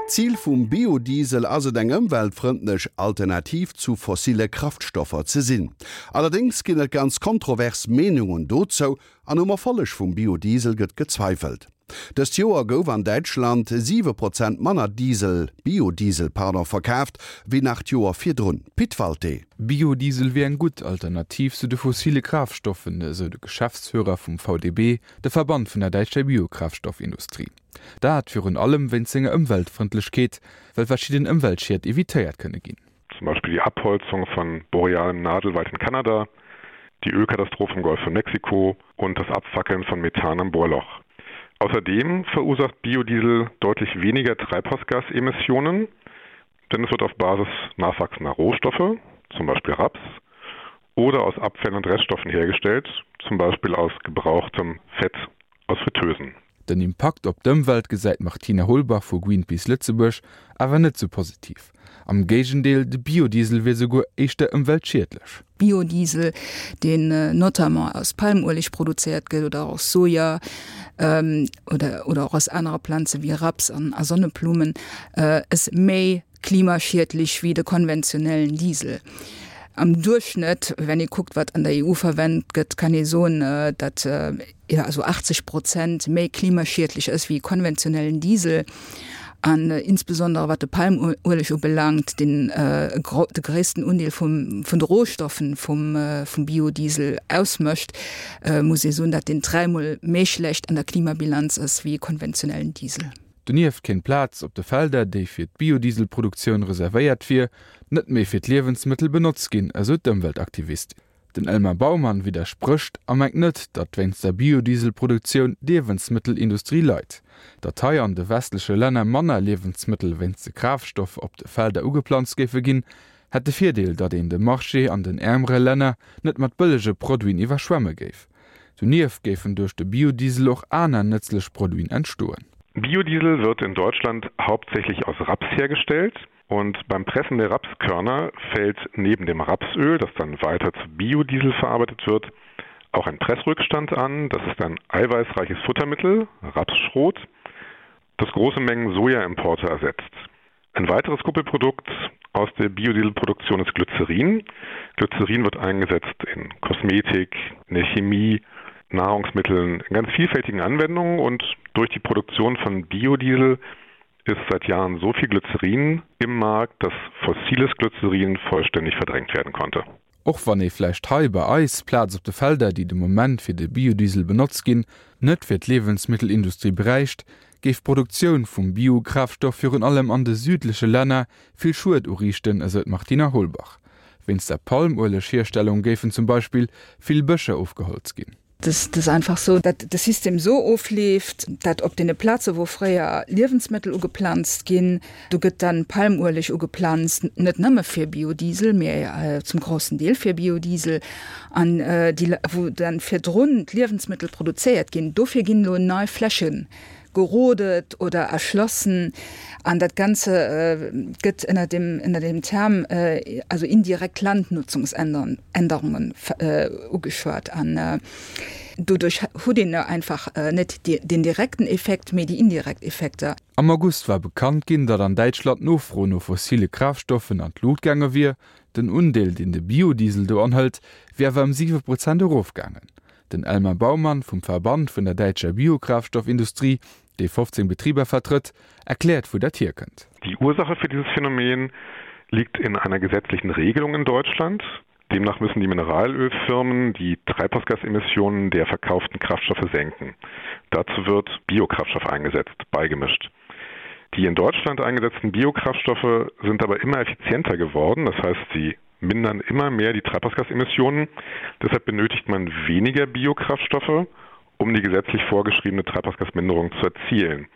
D'Zil vum Biodiesel ass et eng ëmweltfrëndlech Alternativ zu fossille Kraftstoffer ze sinn. Allerdéngs ginn et ganz kontrovers Meenungen dozou an um Erfolleg vum Biodiesel gëtt gezweifelt. Dëst Joer gouf an Däitschland 7 Prozent manner Diesel, Biodiesel, pardon, verkaaft wéi nach d'Joer virdrun. Pit Walté. Biodiesel wier eng gutt Alternativ zu de fossile Kraaftstoffen, esou de Geschäftsführer vum VDB, de Verband vun der däitscher Biokraftstoffindustrie. Dat virun allem wéinst senger Ëmweltfrëndlechkeet, well verschidden Ëmweltschied evitéiert kënne ginn. Zum Beispill die Abholzung von borealem Nadelwald in Kanada, die Ölkatastrophe im Golf von Mexiko und das Abfackeln von Methan am Bohrloch. Außerdem verursacht Biodiesel deutlich weniger Treibhausgasemissionen, denn es wird auf Basis nachwachsender Rohstoffe, zum Beispiel Raps, oder aus Abfällen und Reststoffen hergestellt, zum Beispiel aus gebrauchtem Fett aus Fritteusen. Den Impakt op d'Ëmwelt gesäit d'Martina Holbach vu Greenpeace Lëtzebuerg awer net sou positiv. Am Géigendeel, de Biodiesel wier souguer éischter ëmweltschiedlech. Biodiesel, deen notamment aus Palmueleg produzéiert gëtt oder och aus Soja oder oder och aus anere Planze wéi Raps an a Sonneblummen, ass méi klimaschiedlech wéi de konventionellen Diesel. Am Duerchschnëtt, wenn ee kuckt, wat an der EU verwennt gëtt, kann ee soen, datt jo also 80 Prozent méi klimaschiedlech ass wéi konventionellen Diesel. An insbesondere wat de Palmueleg ubelaangt, deen de gréissten Undeel vum vun de Rohstoffen vum vum Biodiesel ausmécht, muss ee soen, datt deen dräimol méi schlecht an der Klimabilanz ass wéi e konventionellen Diesel. Donieft kéint d'Plaz op de Felder, déi fir d'Biodieselproduktioun reservéiert wier, net méi fir d'Liewensmëttel benotzt ginn, esou d'Ëmweltaktivistin. Den Elmar Baumann widdersprécht a mengt net, datt wéinst der Biodieselproduktioun d'Liewensmëttelindustrie leit. Datt hei an de westleche Länner manner Liewensmëttel wéinst de Kraaftstoff op de Felder ugeplanzt géife ginn, hätt de Virdeel, datt een de Marché an den äermere Länner net mat bëllege Produiten iwwerschwemme géif. Donieft géifen duerch de Biodiesel och aner nëtzlech Produiten entstoen. Biodiesel wird in Deutschland hauptsächlich aus Raps hergestellt und beim Pressen der Rapskörner fällt neben dem Rapsöl, das dann weiter zu Biodiesel verarbeitet wird, auch ein Pressrückstand an. Das ist ein eiweißreiches Futtermittel, Rapsschrot, das große Mengen Sojaimporte ersetzt. Ein weiteres Kuppelprodukt aus der Biodieselproduktion ist Glycerin. Glycerin wird eingesetzt in Kosmetik, in der Chemie, Nahrungsmitteln, in ganz vielfältigen Anwendungen und durch die Produktion von Biodiesel ist seit Jahren so viel Glycerin im Markt, dass fossiles Glycerin vollständig verdrängt werden konnte. Och wann ee vläicht hei bei eis Plaz op de Felder, déi de Moment fir de Biodiesel benotzt ginn, net fir d'Liewensmittelindustrie bräicht, géif d'Produktioun vum Biokraftstoff virun allem an de südleche Länner vill Schued uriichten, esou d'Martina Holbach. Wéinst der Palmueleghierstellung géifen zum Beispill vill Bëscher ofgeholzt ginn. Et ass einfach sou, datt de System sou ofleeft, datt op deene Plaze wou fréier Liewensmëttel ugeplanzt ginn, do gëtt dann Palmueleg ugeplanzt, net nëmme fir Biodiesel, mee zum groussen Deel fir Biodiesel. An déi wou dann virdrun d'Liewensmëttel produzéiert ginn, dofir ginn elo nei Fläche gerodet oder erschlossen an dat Ganze gëtt ënner dem, ënner dem Term also indirekt Landnutzungsänderungen ugeschwat an doduerch hutt een einfach net den direkten Effekt, mee déi indirekt Effekter. Am August war bekannt ginn, datt an Däitschland d'Nofro no fossile Kraaftstoffen an d'Lut gaange wier. Den Undeel, deen de Biodiesel do anhëlt, wier awer ëm 7 Prozent erofgaangen. Den Elmar Baumann vum Verband vun der däitscher Biokraftstoffindustrie, dee 15 Betriber vertrëtt, erkläert wou dat hierkënnt. Die Ursache für dieses Phänomen liegt in einer gesetzlichen Regelung in Deutschland. Demnach müssen die Mineralölfirmen die Treibhausgasemissionen der verkauften Kraftstoffe senken. Dazu wird Biokraftstoff eingesetzt, beigemischt. Die in Deutschland eingesetzten Biokraftstoffe sind aber immer effizienter geworden, das heißt sie mindern immer mehr die Treibhausgasemissionen. Deshalb benötigt man weniger Biokraftstoffe, um die gesetzlich vorgeschriebene Treibhausgasminderung zu erzielen.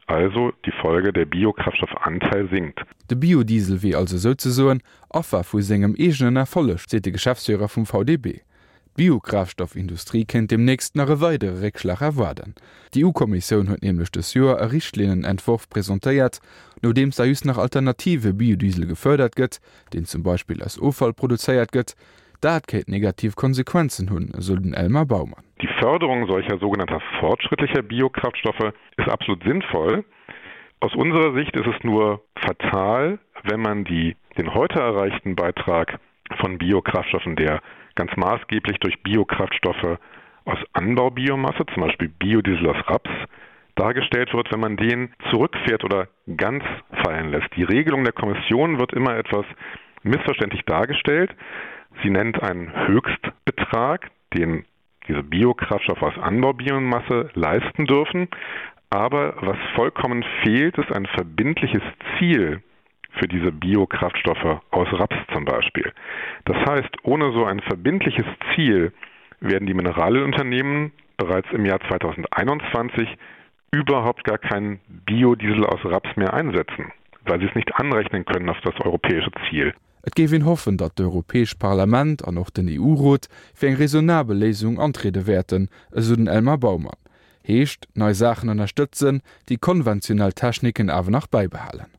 Also die Folge, der Biokraftstoffanteil sinkt. De Biodiesel wier also souzesoen Affer vu sengem eegenen Erfolleg, seet de Geschäftsführer vum VDB. D'Biokraftstoffindustrie kéint deemnächst nach e weidere Réckschlag erwaarden. D'EU-Kommissioun huet nämlech dës Joer e Richtlinnenentworf presentéiert, nodeems da just nach alternative Biodiesel gefërdert gëtt, deen zum Beispill aus Offall produzéiert gëtt. Dat kéint negativ Konsequenzen hunn, esou den Elmar Baumann. Die Förderung solcher sogenannter fortschrittlicher Biokraftstoffe ist absolut sinnvoll. Aus unserer Sicht ist es nur fatal, wenn man die, den heute erreichten Beitrag von Biokraftstoffen, der ganz maßgeblich durch Biokraftstoffe aus Anbaubiomasse, zum Beispiel Biodiesel aus Raps, dargestellt wird, wenn man den zurückfährt oder ganz fallen lässt. Die Regelung der Kommission wird immer etwas missverständlich dargestellt. Sie nennt einen Höchstbetrag, den diese Biokraftstoffe aus Anbaubiomasse leisten dürfen. Aber was vollkommen fehlt, ist ein verbindliches Ziel für diese Biokraftstoffe aus Raps zum Beispiel. Das heißt, ohne so ein verbindliches Ziel werden die Mineralölunternehmen bereits im Jahr 2021 überhaupt gar keinen Biodiesel aus Raps mehr einsetzen, weil sie es nicht anrechnen können auf das europäische Ziel. Et géif een hoffen, datt d'Europäescht Parlament an och den EU-Rot fir eng raisonnabel Léisung antriede wäerten, esou den Elmar Baumann. Heescht, nei Saachen ënnerstëtzen, déi konventionell Techniken awer nach bäibehalen.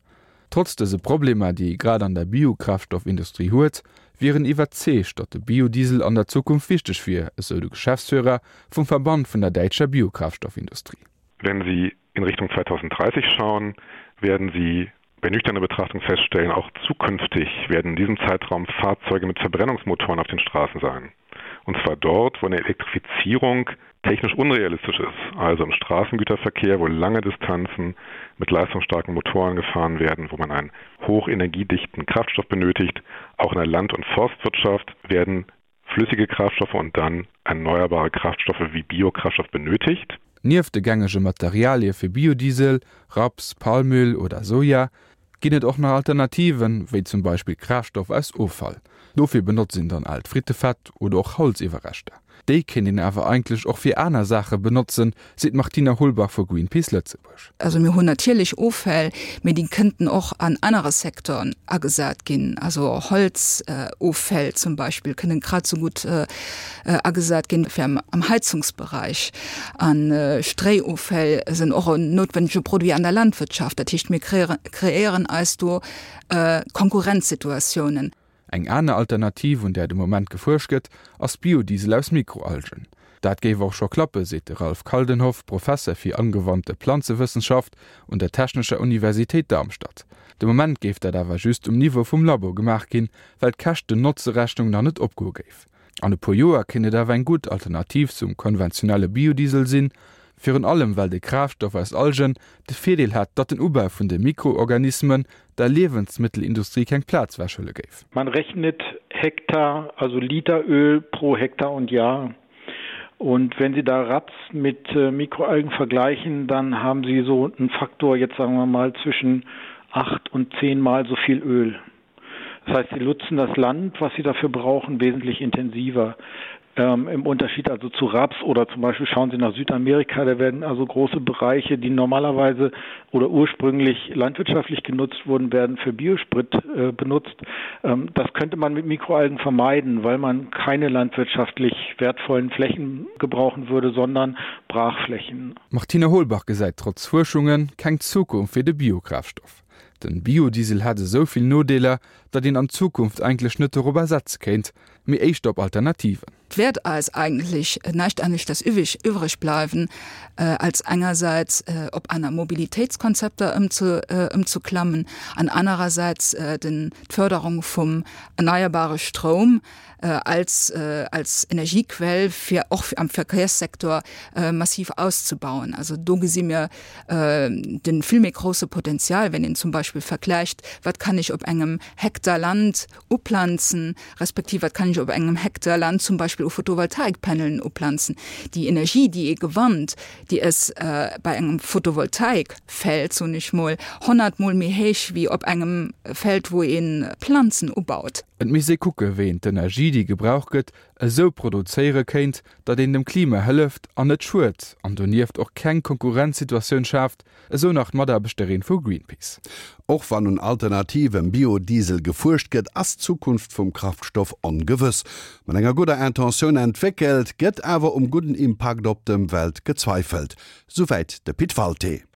Trotz dëse Problemer, déi ee grad an der Biokraftstoffindustrie huet, wier en iwwerzeegt, datt de Biodiesel an der Zukunft wichteg wier, esou de Geschäftsführer vum Verband vun der däitscher Biokraftstoffindustrie. Wenn Sie in Richtung 2030 schauen, werden Sie bei nüchterner Betrachtung feststellen, auch zukünftig werden in diesem Zeitraum Fahrzeuge mit Verbrennungsmotoren auf den Straßen sein. Und zwar dort, wo eine Elektrifizierung technisch unrealistisch ist, also im Straßengüterverkehr, wo lange Distanzen mit leistungsstarken Motoren gefahren werden, wo man einen hochenergiedichten Kraftstoff benötigt. Auch in der Land- und Forstwirtschaft werden flüssige Kraftstoffe und dann erneuerbare Kraftstoffe wie Biokraftstoff benötigt. Nieft de gängege Materialie fir Biodiesel, Raps, Palmöl oder Soja, ginn et och nach Alternativen, wéi zum Beispill Kraaftstoff aus Offall. Dofir benotzt een dann aalt Frittefett oder och Holziwwerreschter. Déi kéint een awer eigentlech och fir aner Saache benotzen, seet d'Martina Holbach vu Greenpeace Lëtzebuerg. Also mir hunn natierlech Offäll, mee déi kënnten och an anere Secteuren agesat ginn. Also Holzoffäll zum Beispill kënnen grad esou gutt agesat ginn fir am Heizungsbereich. A Stréioffäll sinn och en noutwennege Produit an der Landwirtschaft. Dat heescht, mir kreéieren eis do Konkurrenzsituatiounen. Eng aner Alternativ, un där de Moment gefuerscht gëtt, ass Biodiesel aus Mikroalgen. Dat géif och scho klappe, seet de Ralf Kaldenhoff, Professer fir angewandte Planzewëssenschaft un der Technescher Universitéit Darmstadt. De Moment géif dat awer just um Niveau vum Labo gemaach ginn, well d'Käschten-Notze-Rechnung nach net opgoe géif. An e puer Joer kéint et awer eng gutt Alternativ zum konventionelle Biodiesel sinn, virun allem well de Kraaftstoff aus Algen de Virdeel hätt, datt den Ubau vun de Mikroorganismen der Liewensmëttelindustrie keng Plaz wechhuele géif. Man rechnet Hektar, also Liter Öl pro Hektar und Jahr. Und wenn Sie da Raps mit Mikroalgen vergleichen, dann haben Sie so einen Faktor, jetzt sagen wir mal, zwischen acht und zehnmal so viel Öl. Das heißt, sie nutzen das Land, was sie dafür brauchen, wesentlich intensiver. Ähm, Im Unterschied also zu Raps oder zum Beispiel schauen Sie nach Südamerika, da werden also große Bereiche, die normalerweise oder ursprünglich landwirtschaftlich genutzt wurden, werden für Biosprit äh, benutzt. Ähm, das könnte man mit Mikroalgen vermeiden, weil man keine landwirtschaftlich wertvollen Flächen gebrauchen würde, sondern Brachflächen. Martine Holbach gesäit trotz Fuerschungen keng Zukunft fir de Biokraftstoff. Den Biodiesel hätt esou vill Nodeeler, datt een an Zukunft eigentlech net dorobber setze kéint, mee éischter op Alternativen. Et wäert eis eigentlech näischt aneschters iwwreg bleiwen, als engersäits op aner Mobilitéitskonzepter ëmzeklammen an anerersäits d'Förderung vum erneierbare Stroum als als Energiequell fir och am Verkéierssektor massiv auszubauen. Also do gesi mir de vill méi grousse Potenzial, wenn een zum Beispill vergläicht, wat kann ech op engem Hektar Land uplanzen, respektiv wat kann ech op engem Hektar Land zum Beispill u Photovoltaikpanelen uplanzen. Déi Energie, déi ee gewannt, déi ass bei engem Photovoltaikfeld, soen ech mol, honnertmol méi héich wéi op engem Feld, wou ee Planzen ubaut. Et misst ee kucke wéi een d'Energie déi gebraucht gëtt esou produzéiere kéint, datt een dem Klima hëlleft an net schued an donieft och keng Konkurrenzsituatioun schaaft, esou nach d'Mataarbechterin vu Greenpeace. Och wann un alternativem Biodiesel gefuerscht gëtt, ass d'Zukunft vum Kraftstoff ongewëss. Mat enger gudder Intentioun entwéckelt, gëtt awer um gudden Impakt op d'Ëmwelt gezweifelt. Souwäit de Pit Walté.